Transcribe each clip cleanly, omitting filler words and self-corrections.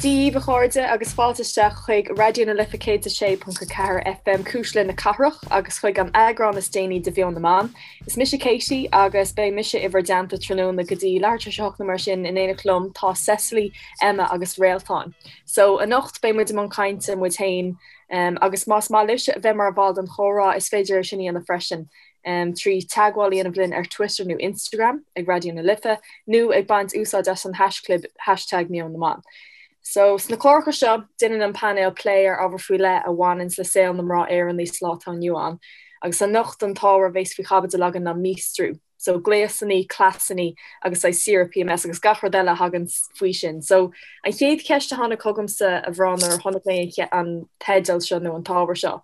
Dia daoibh, a chairde, agus fáilte isteach chuig Raidió na Life 106.4 FM, Cuisle na Cathrach, agus chuig an eagrán is déanaí de Mheon na mBan. Is mise Katie agus beidh mise i bhur dteannta tráthnóna go dtí leathuair tar éis a hocht nó mar sin. In éineacht liom tá Cecily, Emma agus Réaltán. So, anocht beidh muid i mbun cainte muid féin agus más maith libhse a bheith mar bhall den chomhrá is féidir é sin a dhéanamh freisin trí teagmháil a dhéanamh linn ar Twitter nó Instagram ag Raidió na Life nó ag baint úsáid as an haischlib hashtag Meon na mBan. So, sna cláracha seo, déanann an painéal plé ar ábhar faoi leith a bhaineanns le saol na mná Éireannaí sa lá atá inniu ann. Agus anocht an t-ábhar a bheas faoi chaibidil againn ná míostrú. So, gléasanna, cleasanna agus saghas saoire PMS agus gach rud eile a thagann faoi sin. So, an chéad cheist a tháinig chugamsa, a mhná, nuair a chonaic mé an teideal seo nó an t-ábhar seo,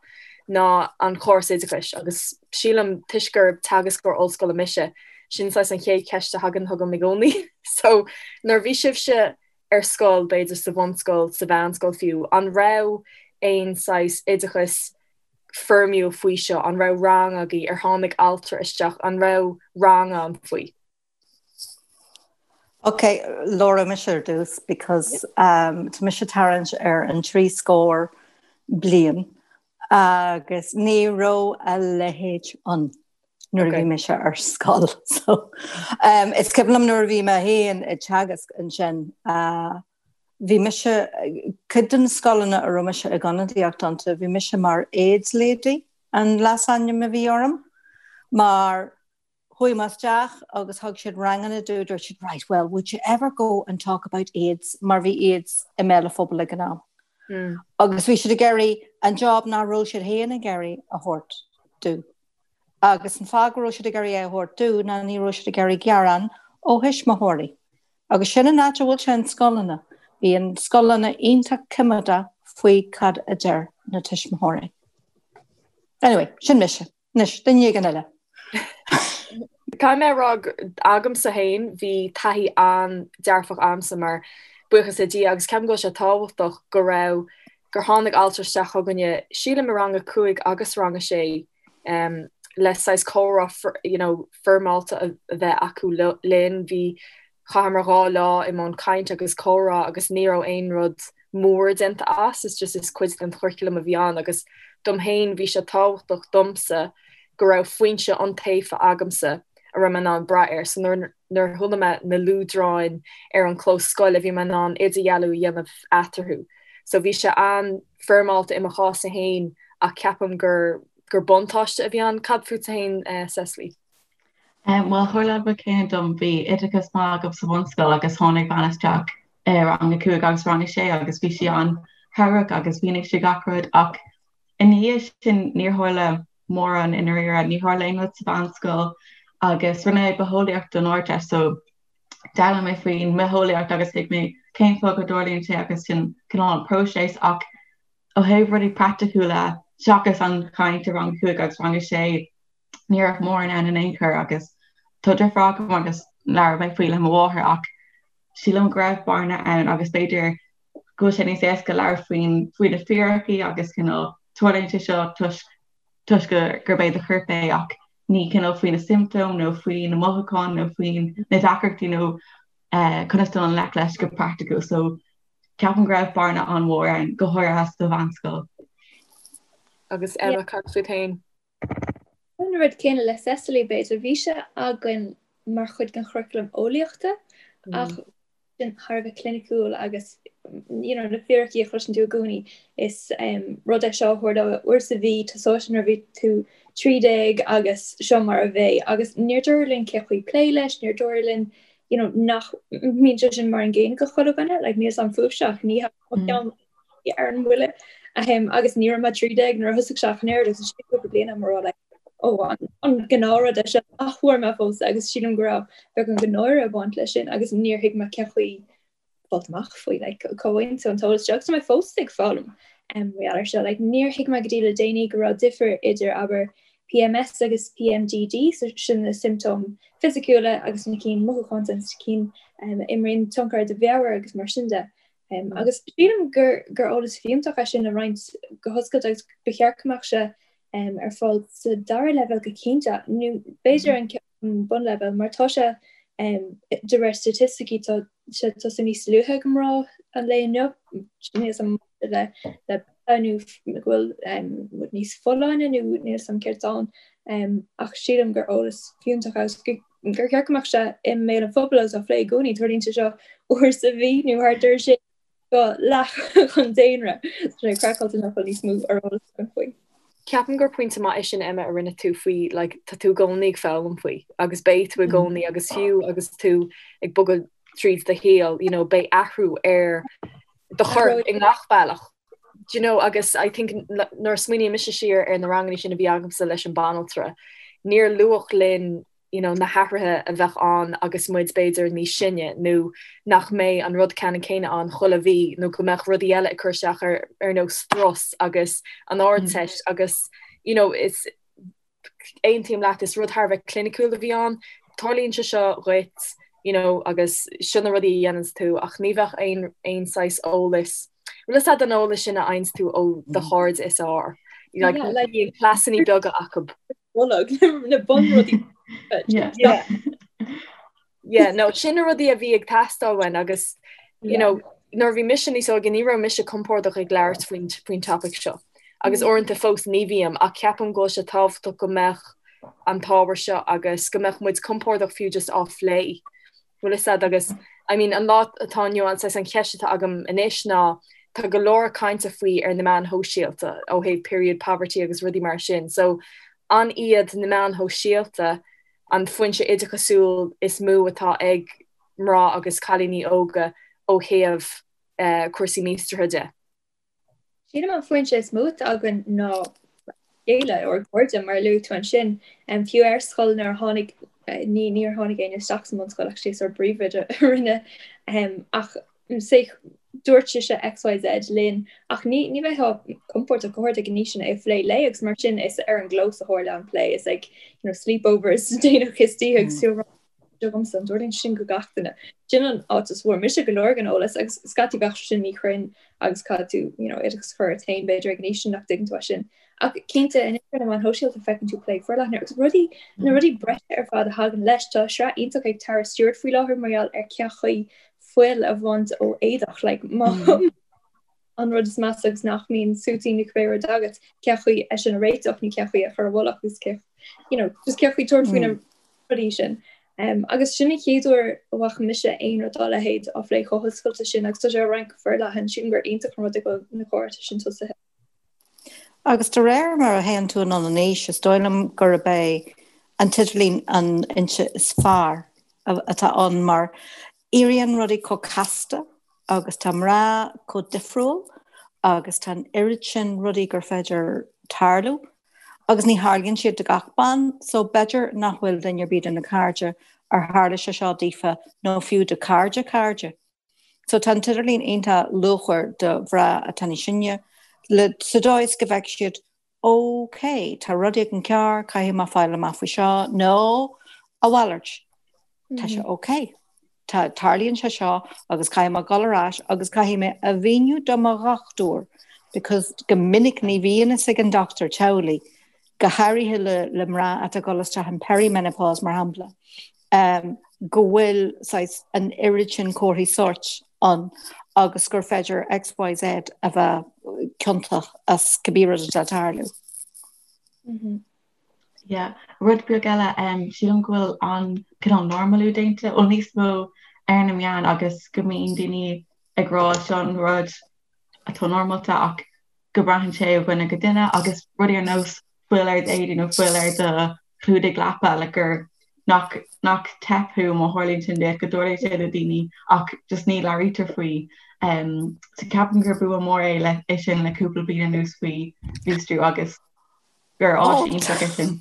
ná an córas oideachais agus sílim toisc gur teagascóir ollscoile mise, sin saghas an chéad cheist a thagann chugam i gcónaí. So, nuair a bhí sibhse ar scoil, b'fhéidir sa bhunscoil, sa mheánscoil fiú, an raibh aon saghas oideachas foirmiúil faoi seo? An raibh rang agaibh? Ar tháinig altra isteach? An raibh rang ann faoi? Ok, labhróidh mise ar dtús because um, tá mise tarraingt ar an trí scór bliain agus ní raibh a leithéid ann nuair a bhí mise ar scoil. So, um, is cuimhin liom nuair a bhí mé féin ag teagasc ansin uh, bhí mise, cuid de na scoileanna a raibh mise ag ionadaíocht iontu, bhí mise mar AIDS lady an leasainm a bhí orm, mar Chuaigh mé isteach agus thug siad ranganna domh, dúirt siad right well would you ever go and talk about AIDS mar bhí AIDS i mbéal an phobail ag an am. Agus bhí siad ag iarraidh an job nach raibh siad féin ag iarraidh a thabhairt domh. Agus an fáth go raibh siad ag iarraidh é a thabhairt domh ná ní raibh siad ag iarraidh gearán ó thuismitheoirí. Agus sin an áit a bhfuil sé in scoileanna. Bíonn scoileanna iontach coimeádach faoi cad a deir na tuismitheoirí. Anyway, sin mise. Anois, duine éigin eile. Caithfidh mé a rá agamsa féin, bhí taithí an-dearfach agamsa mar, buíochas le Dia, agus ceapaim go bhfuil sé tábhachtach go raibh, gur tháinig altra isteach chugainne, sílim i rang a cúig agus rang a sé, le saghas comhrá you know foirmeálta a bheith acu linn. Bhí, chaitheamar 2 lá i mbun cainte agus comhrá agus ní raibh aon rud mór déanta as, is just is cuid den churaclam a bhí ann agus dom féin bhí sé tábhachtach domsa go raibh foinse iontaofa agamsa a raibh mé in ann brath air. So nuair nuair a chuala mé na luaidreáin ar an chlós scoile bhí mé in ann idirdhealú a dhéanamh eatarthu. So bhí sé an-fhoirmeálta i mo chás-sa féin ach ceapaim gur gur buntáiste a bhí ann. Cad fútsa féin Cecily? Bhuel, tharla an rud céanna dom. Bhí oideachas maith agam sa bhunscoil agus tháinig bean isteach i rang a cúig agus rang a sé agus bhí sí an-chabhrach agus mhínigh sí gach rud ach i ndiaidh sin níor tharla mórán i ndáiríre, níor tharla aon rud sa mheánscoil agus rinne mé bitheolaíocht don Ardteist so d'fhoghlaim mé faoin mbitheolaíocht agus thuig mé cén fáth go dtarlaíonn sé agus sin cineál an próiseas ach ó thaobh rudaí praiticiúla seachas an chaint i rang a cúig agus rang a sé ní raibh mórán ann in aon chor agus tá deirfiúr agam agus labhair mé faoi le mo mháthair ach sílim go raibh bearna ann agus b'fhéidir go bhfuil sé níos éasca labhairt faoin faoi na fíricí agus cineál tarlaíonn sé seo toisc toisc gurb é do chorp é ach ní cineál faoi na siomptóim nó faoi na mothúcháin nó faoi na deacrachtaí nó eh, conas dul i ngleic leis go praiticiúil so ceapaim go raibh bearna an-mhór ann go háirithe sa mheánscoil. Agus Emma cad fút féin? An rud céanna le Cecily, b'fhéidir. Bhí sé againn mar chuid den churaclam eolaíochta ach sin thar a bheith cliniciúil agus you know na fíricí a chloiseann tú i gcónaí is rud é seo a tharlóidh uair sa mhí, tosóidh sé nuair a bhí tú 13 agus seo mar a bheidh agus níor dúradh linn cén chaoi plé leis, níor dúradh linn you know nach mbíonn sé sin mar an gcéanna go chuile dhuine, like níl 's a'm fúibhse ach ní mo cheann ar an mbuille agus ní raibh mé 13 nuair a thosaigh sé ach an oiread agus ansin cúpla bliain agam a rá like ó an gnáthrud é seo nach bhfuair mé fós agus sílim go raibh beagán de náire ag baint leis sin agus níor thuig mé cén chaoi fáilt amach faoi like cá bhfaigheann tú an t-eolas seo agus tá mé fós ag foghlaim um, mar gheall air seo like níor thuig mé go dtí le déanaí go raibh difear idir abair PMS agus PMDD so sin na siomptóim fisiciúla agus na cinn mothúchánta na cinn um, a imríonn tionchar ar do mheabhair agus mar sin de. Agus sílim gur gur eolas fiúntach é sin a roinnt go hoscailte agus ba cheart go mbeadh sé ar fáil sa dara leibhéal go cinnte, nó b'fhéidir an bunleibhéal, mar tá sé de réir staitisticí tá sé ag tosú níos luaithe ag mná an lae inniu, níl 'fhios a'm le le nó go bhfuil muid níos folláine nó níl 'fhios a'm céard atá ann ach sílim gur eolas fiúntach agus gur cheart go mbeadh sé i mbéal an phobail agus á phlé i gcónaí. Tarlaíonn sé seo uair sa mhí nó thart air sin do leath an daonra. Tá sé craiceáilte nach bhfuil níos mó ar eolas againn faoi. Ceapaim gur pointe maith é sin Emma a rinne tú faoi like tá tú i gcónaí ag foghlaim faoi agus beidh tú i gcónaí agus fiú agus tú ag bogadh tríd do shaol you know beidh athrú ar do chorp i ngach bealach. Do you know agus I think nuair a smaoiníonn mise siar ar na ranganna sin a bhí agamsa leis an banaltra níor luadh linn you know, na hathruithe a bheadh ann agus muid b'fhéidir níos sine nó nach mbeidh an rud ceannann céanna ann chuile mhí nó go mbeadh rudaí eile ag cur isteach ar ar nós strus agus an Ardteist agus you know, is aontaím leat is rud thar a bheith cliniciúil a bhí ann. Tarlaíonn sé seo dhuit you know, agus seo na rudaí a dhéananns tú ach ní bheadh aon aon saghas eolas bhfuil fhios a'd an eolas sin a fhaigheanns tú ó do chairde is fearr. Like, yeah, like, bíonn cleasanna beaga acu. Bolg na bunrudaí. Yeah. Yeah, no, sin na rudaí a bhí ag teastáil uainn agus you know, nuair a bhí mise níos óige ní raibh mise compordach ag labhairt faoin faoin topic seo. Agus mm. uaireanta fós ní bhím ach ceapaim go bhfuil sé tábhachtach go mbeadh an t-ábhar seo agus go mbeadh muid compordach fiú just á phlé. Bhfuil fhios a'd agus I mean an lá atá inniu ann saghas an cheist atá agam anois ná tá go leor cainte faoi ar na meáin shóisialta ó thaobh period poverty agus rudaí mar sin so an iad na meáin shóisialta an foinse oideachasúil is mó atá ag mná agus cailíní óga ó thaobh eh, cúrsaí míostraithe de? Sílim an foinse is mó atá againn ná chéile ár gcairde mar a luaigh tú ansin. Fiú ar scoil nuair a tháinig, ní níor tháinig éinne isteach sa mbunscoil actually is ár bpríomhoide a rinne ach say dúirt sise XYZ linn ach ní ní bheifeá compordach go háirithe ag an aois sin é a phlé léi agus mar sin is ar an gclós a tharla an plé is ag you know sleepovers déanach istoíche agus agamsa, an dtarlaíonn sin go gach duine. Sin an áit a bhfuair mise go leor den eolas agus scaití bheadh sé sin míchruinn agus caithfidh tú you know, oideachas a chur ort féin b'fhéidir ag an aois sin nach dtuigeann tú é sin. Ach cinnte anois ar na meáin shóisialta feiceann tú plé forleathan agus rudaí na rudaí breise ar fad a thagann leis. Tá sraith iontach ag Tara Stewart faoi láthair mar gheall ar cén chaoi fuil a bhaint ó éadach like, má mm. an rud is measa agus nach mbíonn suití nó cibé rud agat cén chaoi é sin a réiteach nó cén chaoi a chur i bhfolach agus cé you know, just cén chaoi tabhairt faoi na mm. rudaí sin. Um, agus sin an chéad uair a bhfaca mise aon rud dá leithéid á phlé chomh hoscailte sin agus tá sé á roinnt go forleathan sílim gur iontach an rud é go bhfuil na comhráite sin tosaithe. Agus de réir mar a théann tú anonn in aois, is dóigh liom gurb é an t-idirlíon an fhoinse is fearr atá ann mar éiríonn rudaí chomh casta agus tá mná chomh difriúil agus tá an oiread sin rudaí gur féidir tarlú agus ní tharlaíonn siad do gach bean so b'fhéidir nach bhfuil duine ar bith de na cairde ar tharla sé seo daofa nó fiú do cairde cairde. So tá an t-idirlíon iontach luachmhar do mhná atá níos sine le sa dóigh is go bhfeicfidh siad OK, tá rud éigin cearr, caithfidh mé fáil amach faoi seo, nó a mhalairt, tá sé OK, tá, tarlaíonn sé seo agus caithfidh mé dul ar ais agus caithfidh mé a mhíniú do mo dhochtúir because go minic ní bhíonn fhios ag an dochtúir teaghlaigh, go háirithe le, le mná atá ag dul isteach in perimenopause mar shampla, um, go bhfuil saghas an oiread sin comharthaí sóirt ann agus gur féidir XYZ a bheith ciontach as cibé rud atá ag tarlú. Yeah. Rud beag eile, um, sílim go bhfuil an cineál normalú déanta, bhuel níos mó ar na meáin agus go mbíonn daoine ag rá seo an rud atá normálta ach go braitheann sé ó dhuine go duine agus rudaí ar nós fuil ar d'éadaí nó fuil ar do chlúdaigh leapa like gur nach nach teip thú má tharlaíonn sin duit go dtarlaíonn sé le daoine ach just ní labhraítear faoi. Um, so ceapaim gur bua mór é le é sin le cúpla bliain anuas faoi mhíostrú agus gur áis Oh, iontach é sin.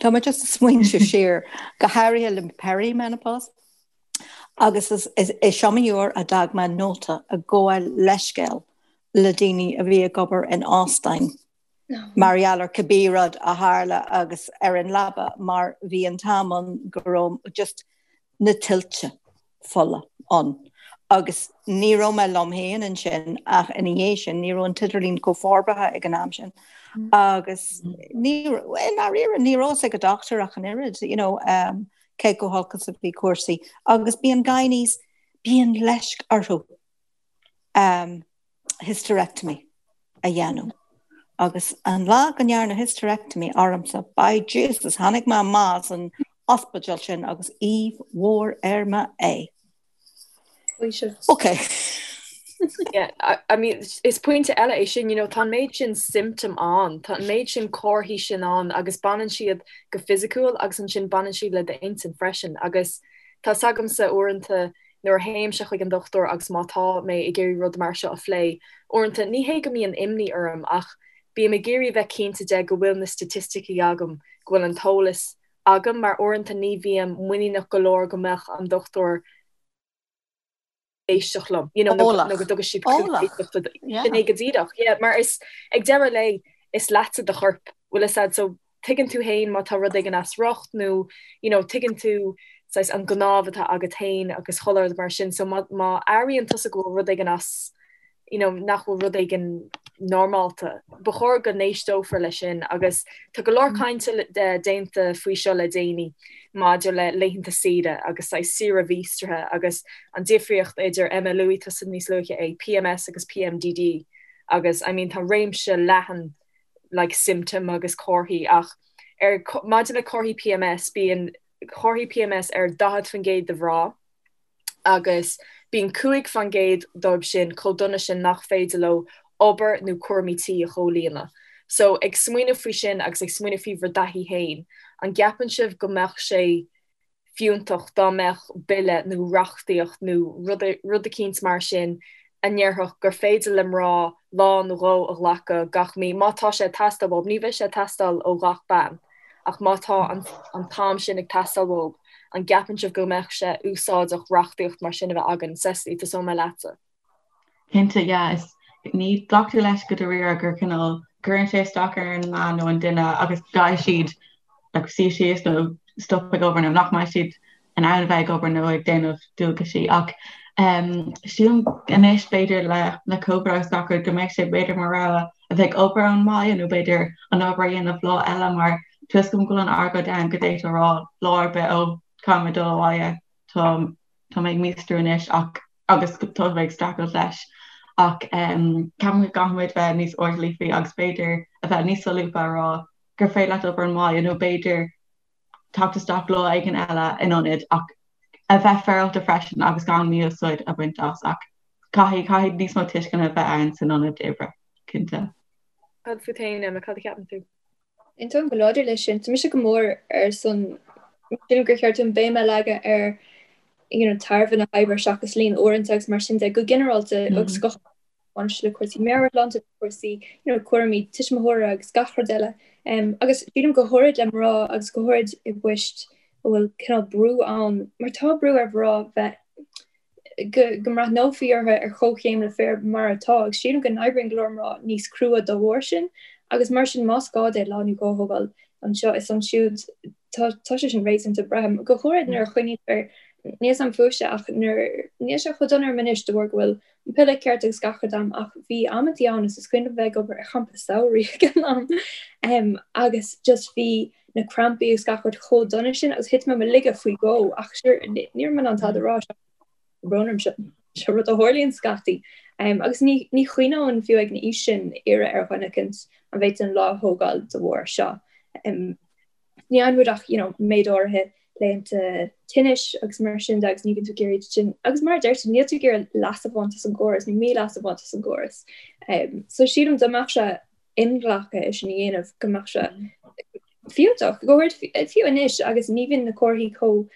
Tá mé just ag smaointiú siar go háirithe le perimenopause agus is, is, is iomaí uair a d'fhág mé nóta ag gabháil leithscéal le daoine a bhí ag obair in óstáin mar gheall ar cibé rud a tharla agus ar an leaba mar bhí an t-am ann go raibh just na tuilte fola ann agus ní raibh mé liom féin ansin ach ina dhiaidh sin ní raibh an t-idirlíon chomh forbartha ag an am sin agus ní i ndáiríre ní raibh fhios ag an dochtúir ach an oiread you know um, cé chomh holc is a bhí cúrsaí agus bíonn gynaes bíonn leisc orthu. um, hysterectomy a dhéanamh. Agus an lá go ndearnadh hysterectomy ormsa, by Jesus, tháinig mé amach as an ospidéal sin agus aoibh mhór ar m'aghaidh. Ok. Yeah, I, I mean, is pointe eile é sin, you know, tá an méid sin symptom ann, tá an méid sin comharthaí sin ann agus baineann siad go fisiciúil agus ansin baineann siad le d'intinn freisin agus tá 's agamsa uaireanta nuair a théimse chuig an dochtúir agus má tá mé ag iarraidh rud mar seo a phlé, uaireanta ní hé go mbíonn imní orm ach bím ag iarraidh a bheith cinnte de go bhfuil na staitisticí agam, go bhfuil an t-eolas agam mar uaireanta ní bhím muiníneach go leor go mbeadh an dochtúir éisteacht liom, you know, nó Eolach. nó go dtugadh siad cluas Eolach. éisteachta do- Yeah. Sin é go díreach, yeah, mar is ag deireadh lae is leatsa do chorp, bhfuil fhios a'd, so tuigeann tú fhéin má tá rud éigin as riocht nó you know tuigeann tú saghas an gnámh atá agat fhéin agus chuile rud mar sin so má má airíonn tusa go bhfuil rud éigin as you know nach bhfuil rud éigin normálta ba chóir go n-éisteofar leis sin agus tá go leor cainte déanta faoi seo le déanaí maidir le laethanta saoire agus saghas saoire mhíostraithe agus an difríocht idir Emma luaigh tusa níos luaithe é PMS agus PMDD agus I mean tá réimse leathan like symptom agus comharthaí ach ar maidir le comharthaí PMS bíonn comharthaí PMS ar 40% de mhná agus bíonn 5% dóibh sin chomh dona sin nach féidir leo obair nó cúraimí tí a chomhlíonadh. So ag smaoineamh faoi sin agus ag smaoineamh faoi bhur dtaithí féin, an gceapann sibh go mbeadh sé fiúntach dá mbeadh bille nó reachtaíocht nó rud eicínt mar sin a ndéarfadh gur féidir le mná lá nó dhó a ghlacadh gach mí, má tá sé ag teastáil uathu. Ní bheidh sé ag teastáil ó ghach bean, ach má tá an t-am sin ag teastáil uathu, an gceapann sibh go mbeadh sé úsáideach reachtaíocht mar sin a bheith againn? Cecily, tosóidh mé leatsa. Cinnte, yeah. Is ní glactar leis go dáiríre gur cineál cuireann sé isteach ar an mbean nó an duine agus caithfidh siad like, suí síos nó stop ag obair nó nach mbeidh siad in ann a bheith ag obair nó ag déanamh dualgaisí ach um, sílim anois b'fhéidir le le Covid agus gach rud go mbeidh sé b'fhéidir mar rogha a bheith ag obair ón mbaile nó b'fhéidir an obair a dhéanamh lá eile mar tá 'fhios agam go bhfuil an argóint ann go d'fhéadfá a rá lá ar bith ó caithfidh mé dul abhaile tá tá mé ag míostrú anois ach agus tá mé ag streachailt leis ach ceapaim go gcaithfimid bheith níos airdeallaí faoi agus b'fhéidir a bheith níos solúbtha a rá gur féidir leat obair ón mbaile nó b'fhéidir teacht isteach lá éigin eile in ionad ach a bheith féaráilte freisin agus gan mí-úsáid a bhaint as ach caithfidh caithfidh níos mó tuisceana a bheith ann san ionad oibre, cinnte. Cad fút féin, Emma, cad a cheapann tú? Aontaím go láidir leis sin. Tá mise go mór ar son sílim gur cheart dúinn béim a leagadh ar you know, tairbhe na hoibre seachas líon uaireanta agus mar sin de go ginearálta agus go baineann sé le cúrsaí meabhairshláinte, cúrsaí you know, cúraimí tuismitheora agus gach rud eile. Um, agus sílim go háirid le mná agus go háirid i bpoist a bhfuil cineál brú ann, mar tá brú ar mhná bheith go mbreathnófaí orthu ar chomhchéim le fir mar atá, agus sílim go n-oibríonn go leor mná níos crua dá bharr sin, agus mar sin más gá di lá nó dhó a thógáil anseo is ansiúd, tá tá sé sin réasúnta, braithim, go háirid nuair a chuimhnítear, níl 's a'm fúibhse ach nuair, níl sé chomh dona orm anois de bharr go bhfuil an piolla ceart agus gach rud a'm ach bhí amantaí ann is is cuimhin liom bheith ag obair ar champa samhraidh ag an am agus just bhí na crampaí agus gach rud chomh dona sin agus thit mé i mo laige faoi dhó ach sure ní raibh mé in ann tada a rá brón orm seo seo rud a tharlaíonn scaití. Um, agus ní, ní chuimhneoinn fiú ag an aois sin iarraidh ar dhuine eicint an bhféadfainn lá a thógáil de bharr seo. Um, ní fhaigheann muid ach you know, méid áirithe laethanta tinnis agus mar sin de agus ní bhíonn tú ag iarraidh sin agus mar a deir tú níl tú ag iarraidh leas a bhaint as an gcóras nó mí-leas a bhaint as an gcóras. Um, so sílim dá mbeadh sé inghlactha é sin a dhéanamh go mbeadh sé fiúntach, go háirid fiú anois agus ní bhíonn na comharthaí chomh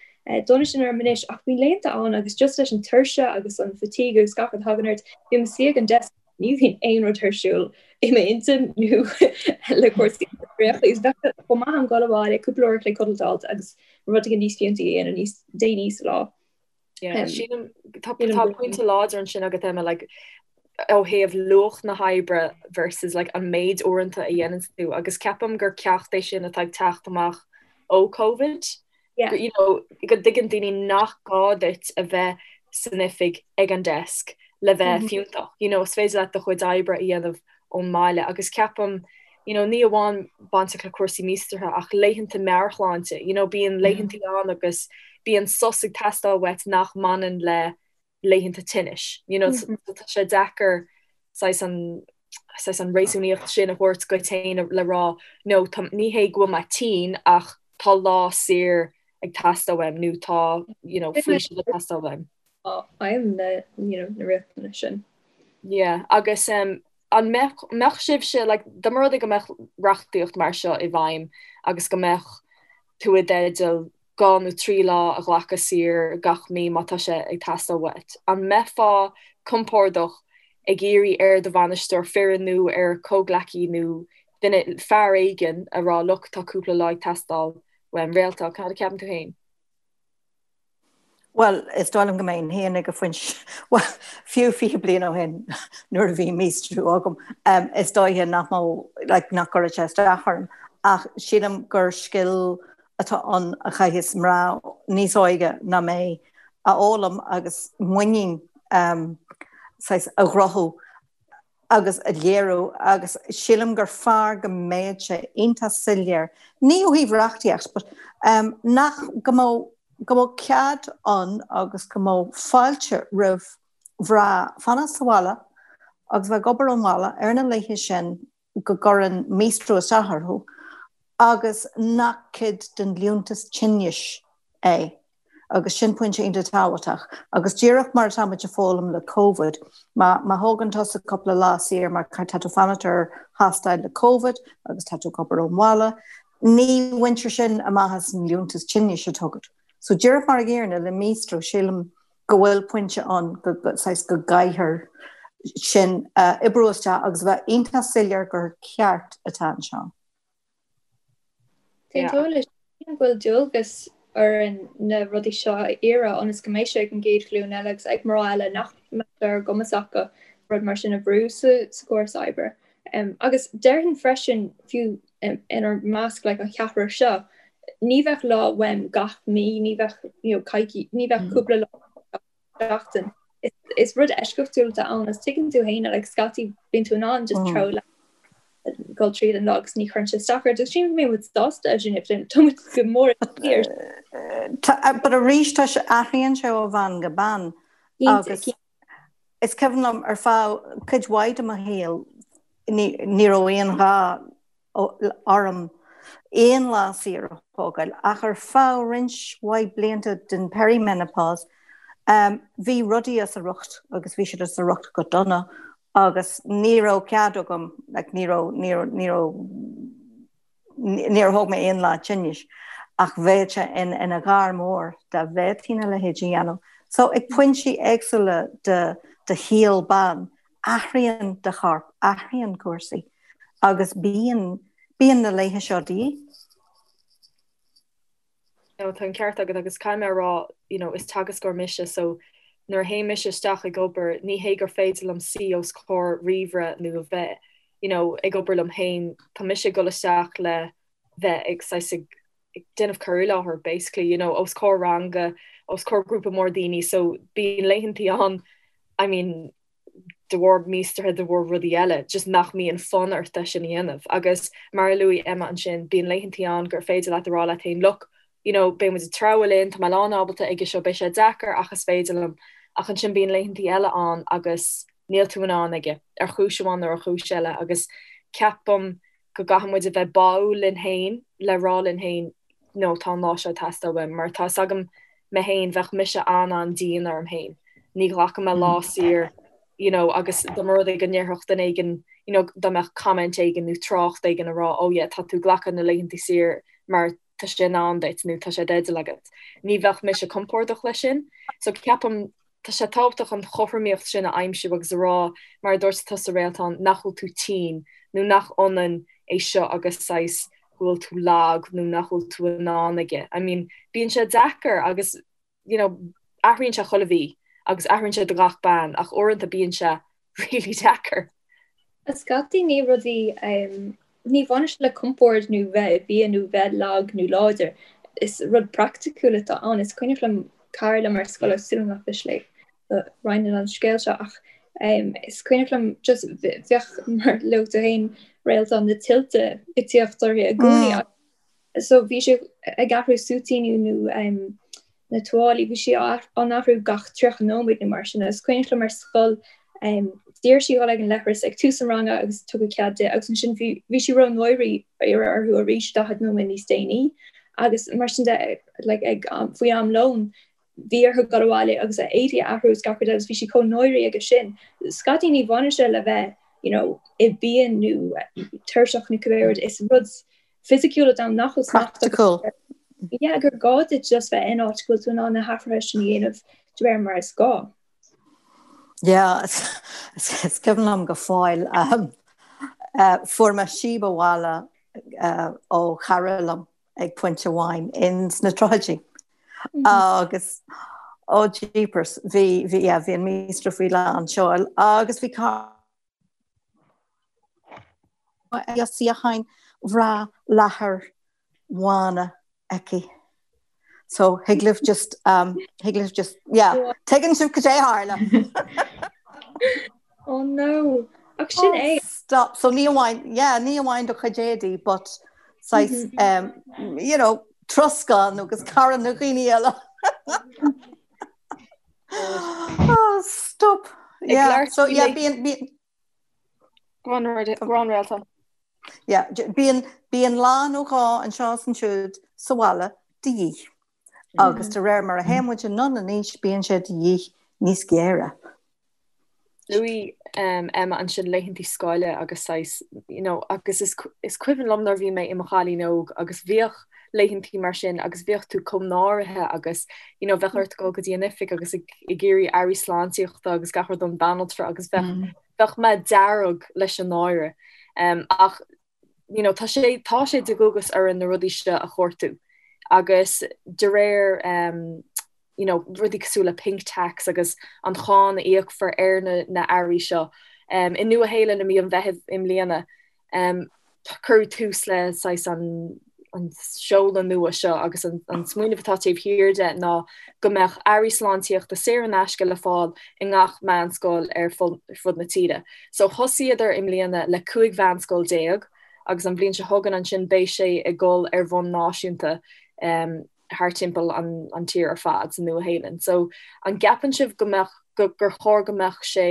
dona sin orm anois ach bíonn laethanta ann agus just leis an tuirse agus an fatigue agus gach rud a thagann ort, bím i mo suí ag an desk ní bhíonn aon rud ar siúl i m'intinn nó le cúrsaí oibríochta is bheadh sé chomh maith agam dul abhaile cúpla uair a chloig codlata a fháilt agus rud éigin níos fiúntaí a dhéanamh níos déanaí sa lá. Yeah, sílim tá tá pointe láidir ansin agat Emma like ó thaobh luach na hoibre versus like an méid uaireanta a dhéanann tú agus ceapaim gur ceacht é sin atá ag teacht amach ó Covid. Yeah. You know, go dtuigeann daoine nach gá duit a bheith san oifig ag an desk le bheith mm -hmm. fiúntach. You know, is féidir leat do chuid oibre a dhéanamh ón mbaile agus ceapaim you know, ní amháin bainteach le cúrsaí míostraithe ach laethanta meabhairshláinte, you know, bíonn laethanta ann agus bíonn sos ag teastáil uait nach mbaineann le. laethanta tinnis. You know, mm -hmm. tá sé deacair saghas an saghas an réasúnaíocht sin a thabhairt duit féin le rá no tá ní hé go bhfuil mé tinn ach tá lá saor ag teastáil uaim nó tá you know, faoiseamh ag teastáil uaim. Aidhm na you know, na riachtanais sin. Yeah, agus um, an mbeadh, mbeadh sibhse like, dá mba rud é go mbeadh reachtaíocht mar seo i bhfeidhm agus go mbeadh tú i dteideal 2 nó 3 lá a ghlacadh saor gach mí má tá sé ag teastáil uait. An mbeifeá compordach ag iarraidh ar do bhainisteoir foireann nó ar comhghleacaí nó duine, fear éigin, a rá look tá cúpla lá ag teastáil uaim. Réaltán, cad a ceapann tú féin? Bhuel, is dóigh liom go mbeinn féin ag an phointe, bhuel, fiú 20 bliain ó shin nuair a bhí míostrú agam, is dóiche nach mbeadh, like, nach gcuirfeadh sé isteach orm. Ach sílim gur scil atá ann a chaithfeas mná níos óige ná mé a fhoghlaim agus muinín saghas a chruthú agus a léiriú agus sílim gur fearr go mbeadh sé iontach soiléir, ní ó thaobh reachtaíocht but nach, go mbeadh, go mbeadh cead ann agus go mbeadh fáilte roimh mhná fanacht sa bhaile agus bheith ag obair ón bhaile ar na laethe sin go gcuireann míostrú isteach orthu agus nach cuid den liúntas tinnis é agus sin pointe iontach tábhachtach. Agus díreach mar atá muid ag foghlaim le Covid, má má thógann tusa cúpla lá saor mar tá tú ag fanacht ar thástáil le Covid agus tá tú ag obair ón bhaile, ní bhaintear sin amach as an liúntas tinnis atá agat. So díreach mar an gcéanna le míostrú, sílim go bhfuil pointe ann go saghas go gcaithfear sin a oibriú isteach agus a bheith iontach soiléir gur ceart atá anseo. D'aontóinn leis sin go bhfuil dualgas orainn na rudaí seo a iarraidh ionas go mbeidh sé ag an gcéad ghlúin eile agus ag mná eile nach mbeidh sé ar a gcumas acu rud mar sin a bhrú sa chóras oibre. Agus déarfainn freisin, fiú inár measc like an cheathrar seo, ní bheadh lá uaim gach mí, ní bheadh you know coicís, ní bheadh cúpla lá gach seachtain. Is rud eisceachtúil atá ann agus tuigeann tú féin like scaití bíonn tú in ann just treabhadh leat dul tríd an lá agus ní chuireann sé isteach ort agus sílim go mbeidh muid sásta sin if tá muid go mór ar But arís tá sé athraíonn sé ó bhean go bean agus Is cuimhin liom ar feadh cuid mhaith de mo shaol ní raibh aon ghá orm aon lá saor a thógáil ach ar feadh roinnt mhaith blianta den perimenopause bhí rudaí as a riocht agus bhí siad as a riocht go dona agus ní raibh cead agam like ní raibh ní raibh ní raibh Níor thóg mé aon lá tinnis ach bheadh sé ina ghar mór dá bhféadfainn a leithéid a dhéanamh. So ag pointí éagsúla de do shaol ban, athraíonn do chorp, athraíonn cúrsaí agus bíonn, bíonn na laethe seo de dhíth. No, tá an ceart agat agus caithfidh mé a rá, you know, is teagascóir mise so nuair a théim mise isteach ag obair, ní hé gur féidir liom suí os comhair ríomhaire nó a bheith, you know, ag obair liom féin, tá mise ag dul isteach le bheith ag saghas ag déanamh cur i láthair basically, you know, os comhair ranga, os comhair grúpa mór daoine so bíonn laethantaí ann, I mean, de bharr míostraithe, de bharr rudaí eile, just nach mbíonn fonn ort é sin a dhéanamh. Agus mar a luaigh Emma ansin, bíonn laethantaí ann gur féidir leat a rá leat féin, look, you know, beidh muid ag treabhadh linn, tá mé lán ábalta aige seo, beidh sé deacair ach is féidir liom. Ach ansin bíonn laethantaí eile ann agus níl tú in ann aige, ar chúis amháin nó ar chúis eile. Agus ceapaim go gcaithfidh muid a bheith báúil linn féin le rá linn féin no tá an lá seo ag teastáil uaim mar tá 'fhios agam mé féin bheadh mise an-an-dian orm féin ní ghlacfaidh mé lá saor you know agus dá mba rud é go ndéarfadh duine éigin you know dá mbeadh comment éigin nó trácht éigin a rá oh yeah tá tú ag glacadh na laethanta saor mar tá sé in am duit nó tá sé i dteideal agat. Ní bheadh mise compordach leis sin. So ceapaim tá sé tábhachtach an chothromaíocht sin a aimsiú agus a rá, mar a dúirt tusa Réaltán, nach bhfuil tú tinn nó nach ionann é seo agus saghas go bhfuil tú lag nó nach bhfuil tú in ann aige. I mean, bíonn sé deacair agus you know, athraíonn sé chuile mhí agus athraíonn sé do gach bean ach uaireanta bíonn sé really deacair. Scaití ní rudaí, ní bhaineann sé le compord nó bheith i bpian nó bheith lag nó láidir. Is rud praiticiúil atá ann. Is cuimhneach liom cara liom ar scoil agus súil agam nach miste léi go roinnfinn an scéal seo ach is cuimhneach liom just bheadh mar luaigh tú féin Réaltán na tuilte ag tíocht uirthi i gcónaí. So bhí sé ag athrú súitíní nó. Na tuáillí, bhí sí á n-athrú gach 30 nóiméad nó mar sin agus is cuimhneach liom ar scoil d'iarr sí dhul ag an leithreas ag tús an ranga agus tugadh cead di agus ansin bhí bhí sí ró-náirithe iarraidh orthu arís 40 nóiméad níos déanaí agus mar sin de like ag faoi am lóin bhí orthu dul abhaile agus a éadaí a athrú agus gach rud agus bhí sí chomh náirithe aige sin. Scaití ní bhaineann sé le bheith you know i bpian nó tuirseach nó cibé rud is rud fisiciúil atá ann nach bhfuil smacht agat air. Yeah, gur gá duit just bheith in áit go bhfuil tú in ann na hathruithe sin a dhéanamh de réir mar is gá. Yeah, is cuimhin liom go fóill um, uh, fuair mé síob abhaile uh, ó chara liom ag pointe amháin ins na tríochaidí. Mm -hmm. Agus oh jeepers, bhí bhí yeah, bhí an míostra faoi lán seoil agus bhí suíocháin bhreá leathair bhána aici. So thig libh just um, thig libh just yeah, tuigeann sibh cad é a tharla. Oh no. Ach sin é. Stop. So ní amháin yeah, ní amháin do chuid éadaí but saghas um, you know, troscán agus cara na dhaoine eile. Oh, stop. Yeah, so yeah, bíonn bíonn Go on, go on Réaltán. Yeah, bíonn bíonn lá nó dhó anseo is ansiúd sa bhaile de dhíth. Agus de réir mar a théann muid anonn in aois bíonn sé de dhíth níos géire. Luaigh Emma ansin laethantaí scoile agus saghas, you know, agus is is cuimhin liom nuair a bhí mé i mo chailín óg agus bhíodh laethantaí mar sin agus bhíodh tú chomh náirithe agus, you know, bheadh ort dul go dtí an oifig agus ag ag iarraidh earraí sláintíochta agus gach rud ón banaltra agus bheadh bheadh mé dearg leis an náire. Ach, you know, tá sé tá sé de dhualgas orainn na rudaí seo a chuartú agus de réir you know, rudaí cosúil le pink tax agus an cháin a íocfar ar na na earraí seo. Um, I Nua Shéalainn i mí an Mheithimh i mbliana, um, cuireadh tús le saghas an an seoladh nua seo agus an, an smaoineamh atá taobh thiar de ná go mbeadh earraí sláintíochta saor in aisce le fáil i ngach meánscoil ar fud na tíre. So thosaíodar i mbliana le 15 mheánscoil agus an bhliain seo chugainn ansin beidh sé ag dul ar bhonn náisiúnta um, thar timpeall an, an tír ar fad sa Nua Shéalainn. So an gceapann sibh go mbeadh go, gur chóir go mbeadh sé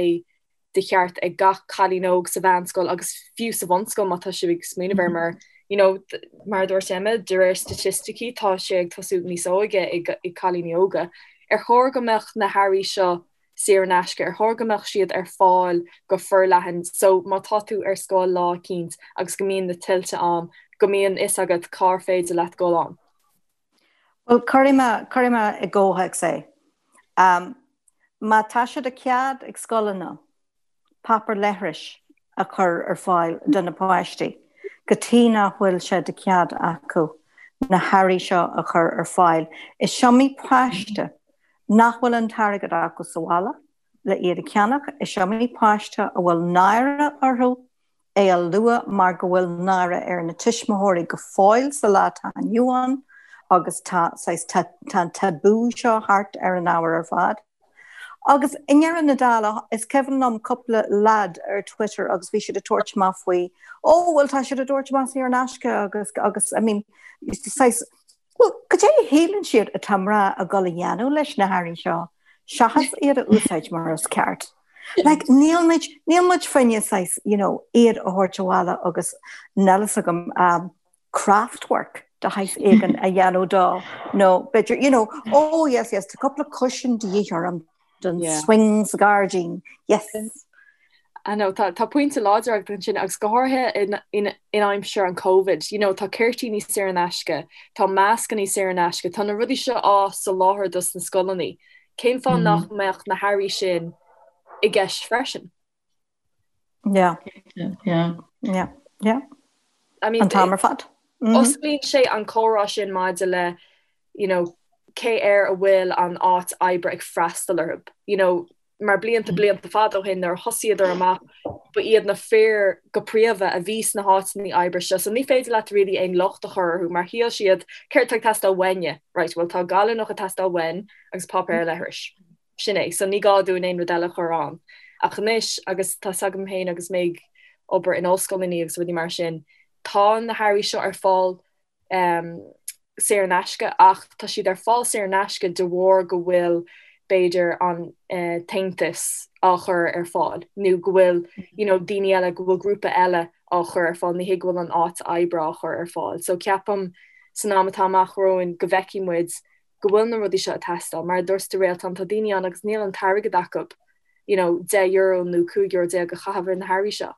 de cheart ag gach cailín óg sa mheánscoil agus fiú sa bhunscoil má tá sibh ag smaoineamh air mar you know, mar a dúirt Emma, de réir staitisticí tá sé ag tosú níos óige ag, ag cailíní óga. Ar chóir go mbeadh na hearraí seo saor in aisce, ar chóir go mbeadh siad ar fáil go forleathan so má tá tú ar scoil lá eicínt agus go mbíonn na tuilte ann, go mbíonn fhios agat cár féidir leat dul ann. Bhuel, cuirfidh mé, cuirfidh mé i gcomhthéacs é. Um, má tá sé de chead ag scoileanna páipéar leithris a chur ar fáil do na páistí, cad chuige nach bhfuil sé de chead acu na hearraí seo a chur ar fáil. Is iomaí páiste nach bhfuil an t-airgead acu sa bhaile le iad a cheannach, is iomaí páiste a bhfuil náire orthu é a lua mar go bhfuil náire ar na tuismitheoirí go fóill sa lá atá inniu ann agus tá saghas tá an tabú seo thart ar an ábhar ar fad. Agus i ndeireadh na dála, is cuimhin liom cúpla leaid ar Twitter agus bhí siad ag tabhairt amach faoi, ó bhuel tá siad ag tabhairt amach saor in aisce agus agus I mean saghas Bhuel, cad é a shíleann siad atá mná ag dul a dhéanamh leis na hearraí seo, seachas iad a úsáid mar is ceart? Like, níl muid, níl muid fá choinne saghas, you know, iad a thabhairt abhaile agus níl fhios agam, um, craft work de shaghas éigin a dhéanamh dó, nó b'fhéidir, you know, oh yes, yes, tá cúpla cushion de dhíth orm don Yeah. swing sa ghairdín, yes. I know, tá, tá pointe láidir agat ansin agus go háirithe in, in, in aimsir an Covid, you know, tá ceirtlíní saor in aisce, tá mascannaí saor in aisce, tá na rudaí seo á soláthar dos na scoileanna. Cén fáth mm. nach mbeadh na hearraí sin i gceist freisin? Yeah. Yeah. Yeah. Yeah. I mean, An t-am ar fad. Mm -hmm. Osclaíonn sé an comhrá sin maidir le you know, cé air a bhfuil an áit oibre ag freastal orthu. You know, mar blianta blianta fada ó shin nuair a thosaíodar amach ba iad na fir go príomha a bhí sna háiteanna oibre seo so ní féidir leat really aon locht a chur orthu mar shíl siad céard atá ag teastáil uainne right bhuel tá gallúnach ag teastáil uainn agus páipéar leithris sin é so ní gá dúinn aon rud eile a chur ann ach anois agus tá 's agam féin agus mé ag obair in ollscoileanna agus rudaí mar sin tá na hearraí seo ar fáil um, saor in aisce ach tá siad ar fáil saor in aisce de bharr go bhfuil b'fhéidir an tAontas á chur ar fáil nó go bhfuil you know daoine eile, go bhfuil grúpa eile á chur ar fáil, ní hé go bhfuil an áit oibre á chur ar fáil. So ceapaim san am atá amach romhainn go bhfeicfidh muid go bhfuil na rudaí seo ag teastáil. Mar a dúirt tú Réaltán, tá daoine ann agus níl an t-airgead acu you know €10 nó €15 a chaitheamh ar na hearraí seo.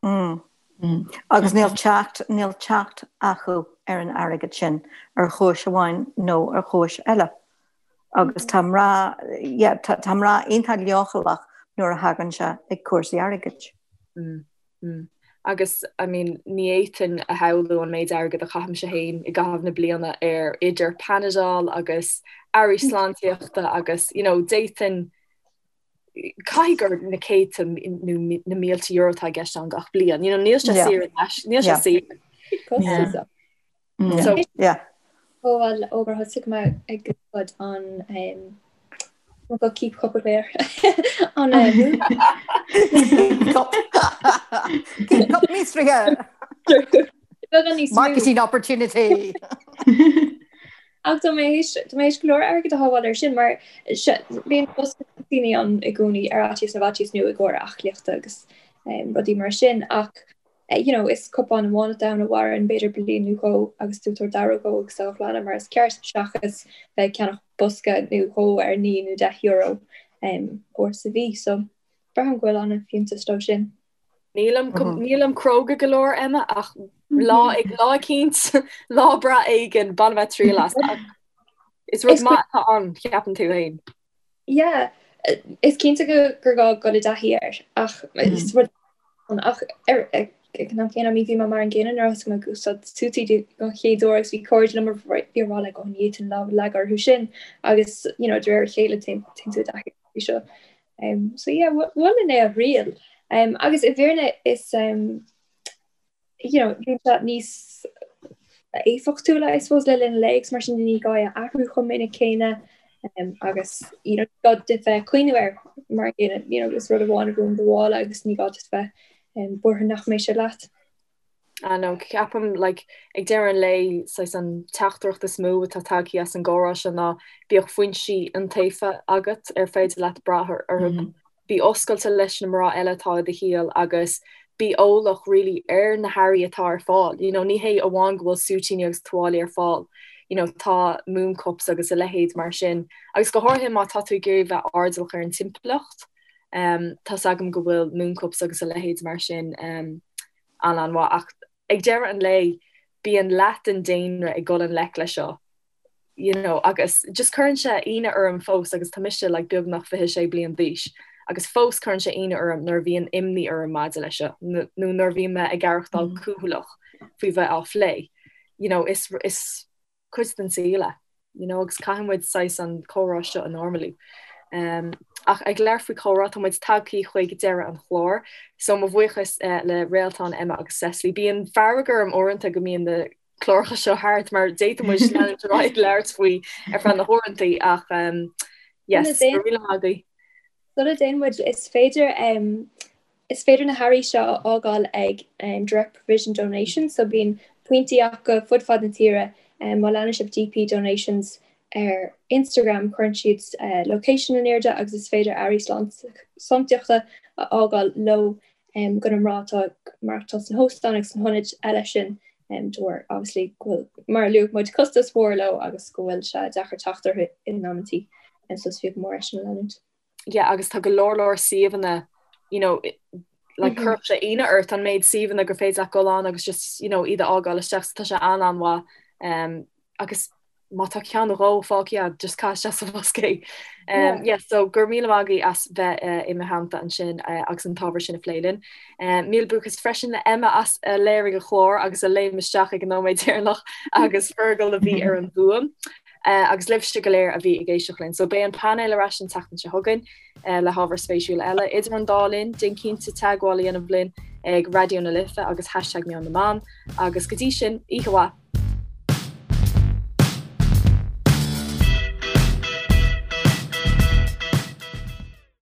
Agus níl teacht, níl teacht acu ar an airgead sin ar chúis amháin nó ar chúis eile. Agus tá mná, yeah, tá, tá mná iontach leochaileach nuair a thagann sé ag cúrsaí airgid. Agus, I mean, ní fhéadfainn a shamhlú an méid airgid a chaithimse féin i gcaitheamh na bliana ar idir Panadol agus earraí sláintíochta agus, you know, d'fhéadfainn, caithfidh gur na céadta nó na mílte euro atá i gceist ann gach bliain. You know, níl sé saor in aisce, níl sé saor. So, yeah. Bhuel, ó gur thosaigh mé ag úsáid an go keep cup of air an Keep cup míostraithe. Marketing opportunity. Ach tá mé tá mé théis go leor airgid a shábháil air sin mar bíonn bosca toitíní ann i gcónaí ar fhaitíos na bhfaitíos nó i gcomhair aclaíochta agus rudaí mar sin ach you know is cupán amháin atá ann a mhaireann b'fhéidir bliain nó dhó agus tú ag tabhairt aire dhó agus á ghlanadh mar is ceart seachas bheith ag ceannach bosca nó dhó ar 9 nó 10 euro uair sa mhí so braithim go bhfuil an-fhiúntas leo sin. Nílim nílim cróga go leor Emma ach lá ag lá eicínt lá breá éigin bainfidh mé triail as. Is rud maith atá ann ceapann tú féin. Yeah, is cinnte go gur gá dul i dtaithí air ach is rud ach ar ag an am céanna bhí mé mar an gcéanna nuair a thosaigh mé ag úsáid sútaí don chéad uair agus bhí cairde liom a bhí ag rá like oh ní fhéadfainn lámh a leagadh orthu sin agus you know de réir a chéile téann tú i dtaithí seo. Um, so yeah, mholfainn é a thriail. Um, agus i bhfírinne is um, you know, bíonn sé níos éifeachtúla I suppose le linn an lae agus mar sin ní gá é a athrú chomh minic céanna um, agus you know, gá duit bheith ag cuimhneamh air mar you know, is rud amháin a bhíonn i do mhála agus ní gá duit bheith um, buartha nach mbeidh sé leat. I know, ceapaim like ag deireadh an lae saghas an teachtaireacht is mó atá tagtha as an gcomhrá seo ná bíodh foinsí iontaofa agat ar féidir leat brath orthu. Bí oscailte leis na mná eile atá i do shaol agus bí eolach really ar na hearraí atá ar fáil. You know, ní hé amháin go bhfuil súitíní agus tuáillí ar fáil, you know, tá moon cups agus a leithéid mar sin. Agus go háirithe má tá tú ag iarraidh bheith airdeallach ar an timpeallacht, um, tá's agam go bhfuil moon cups agus a leithéid mar sin um, an-an-mhaith ach ag deireadh an lae bíonn leath den daonra ag dul i ngleic leis seo you know agus just cuireann sé ionadh orm fós agus tá mise like beagnach 26 bliain d'aois agus fós cuireann sé ionadh orm nuair a bhíonn imní orm maidir leis seo nó nuair a bhíonn mé ag aireachtáil cúthaileach faoi bheith á phlé you know is is cuid den saol é, you know, agus caithfidh muid saghas an comhrá seo a normalú. Um, ach ag labhairt faoi chomhrá, tá muid tagthaí chuig deireadh an chláir, so mo bhuíochas uh, le Réaltán, Emma agus Cecily. Bíonn fearg orm uaireanta go mbíonn na cláracha seo thart mar d'fhéadfadh muid leanúint ar aghaidh ag labhairt faoi ar feadh na huaireanta ach um, yes, go raibh míle maith agaibh. Sula dtéann muid, is féidir um, Is féidir na hearraí seo a fhágáil ag Direct Provision Donations, so bíonn pointí acu fud fad na tíre. Má leanann sibh DP Donations ar Instagram, cuireann siad location in airde agus is féidir earraí sláintíochta a fhágáil leo do na mná atá ag maireachtáil sna hóstáin agus sna hionaid eile sin de bharr obviously go bhfuil, mar a luaigh muid, costas mhór leo agus go bhfuil sé deacair teacht orthu in amantaí. So is fiú go mór é sin a leanúint. yeah agus tá go leor leor suíomhanna you know like cuirfeadh sé ionadh ort an méid suíomhanna gur féidir leat dul ann agus just you know iad a fhágáil isteach so tá sé an-an-mhaith um, agus má tá ceann nó dhó fágtha agat just caith isteach sa bhosca é. Um, yeah, so go raibh míle maith agaibh as bheith uh, i mo theannta ansin uh, agus an t-ábhar sin a phlé linn. Um, míle buíochas freisin le Emma as a léirigh an clár agus a léim isteach ag an nóiméad deireanach agus Fergal a bhí ar an bhfuaim. Agus libhse go léir a bhí ag éisteacht linn. So beidh an painéal ar ais an tseachtain seo chugainn le hábhar spéisiúil eile. Idir an dá linn, déan cinnte teagmháil a dhéanamh linn ag Raidió na Life agus hashtag Meon na mBan. Agus go dtí sin, oíche mhaith!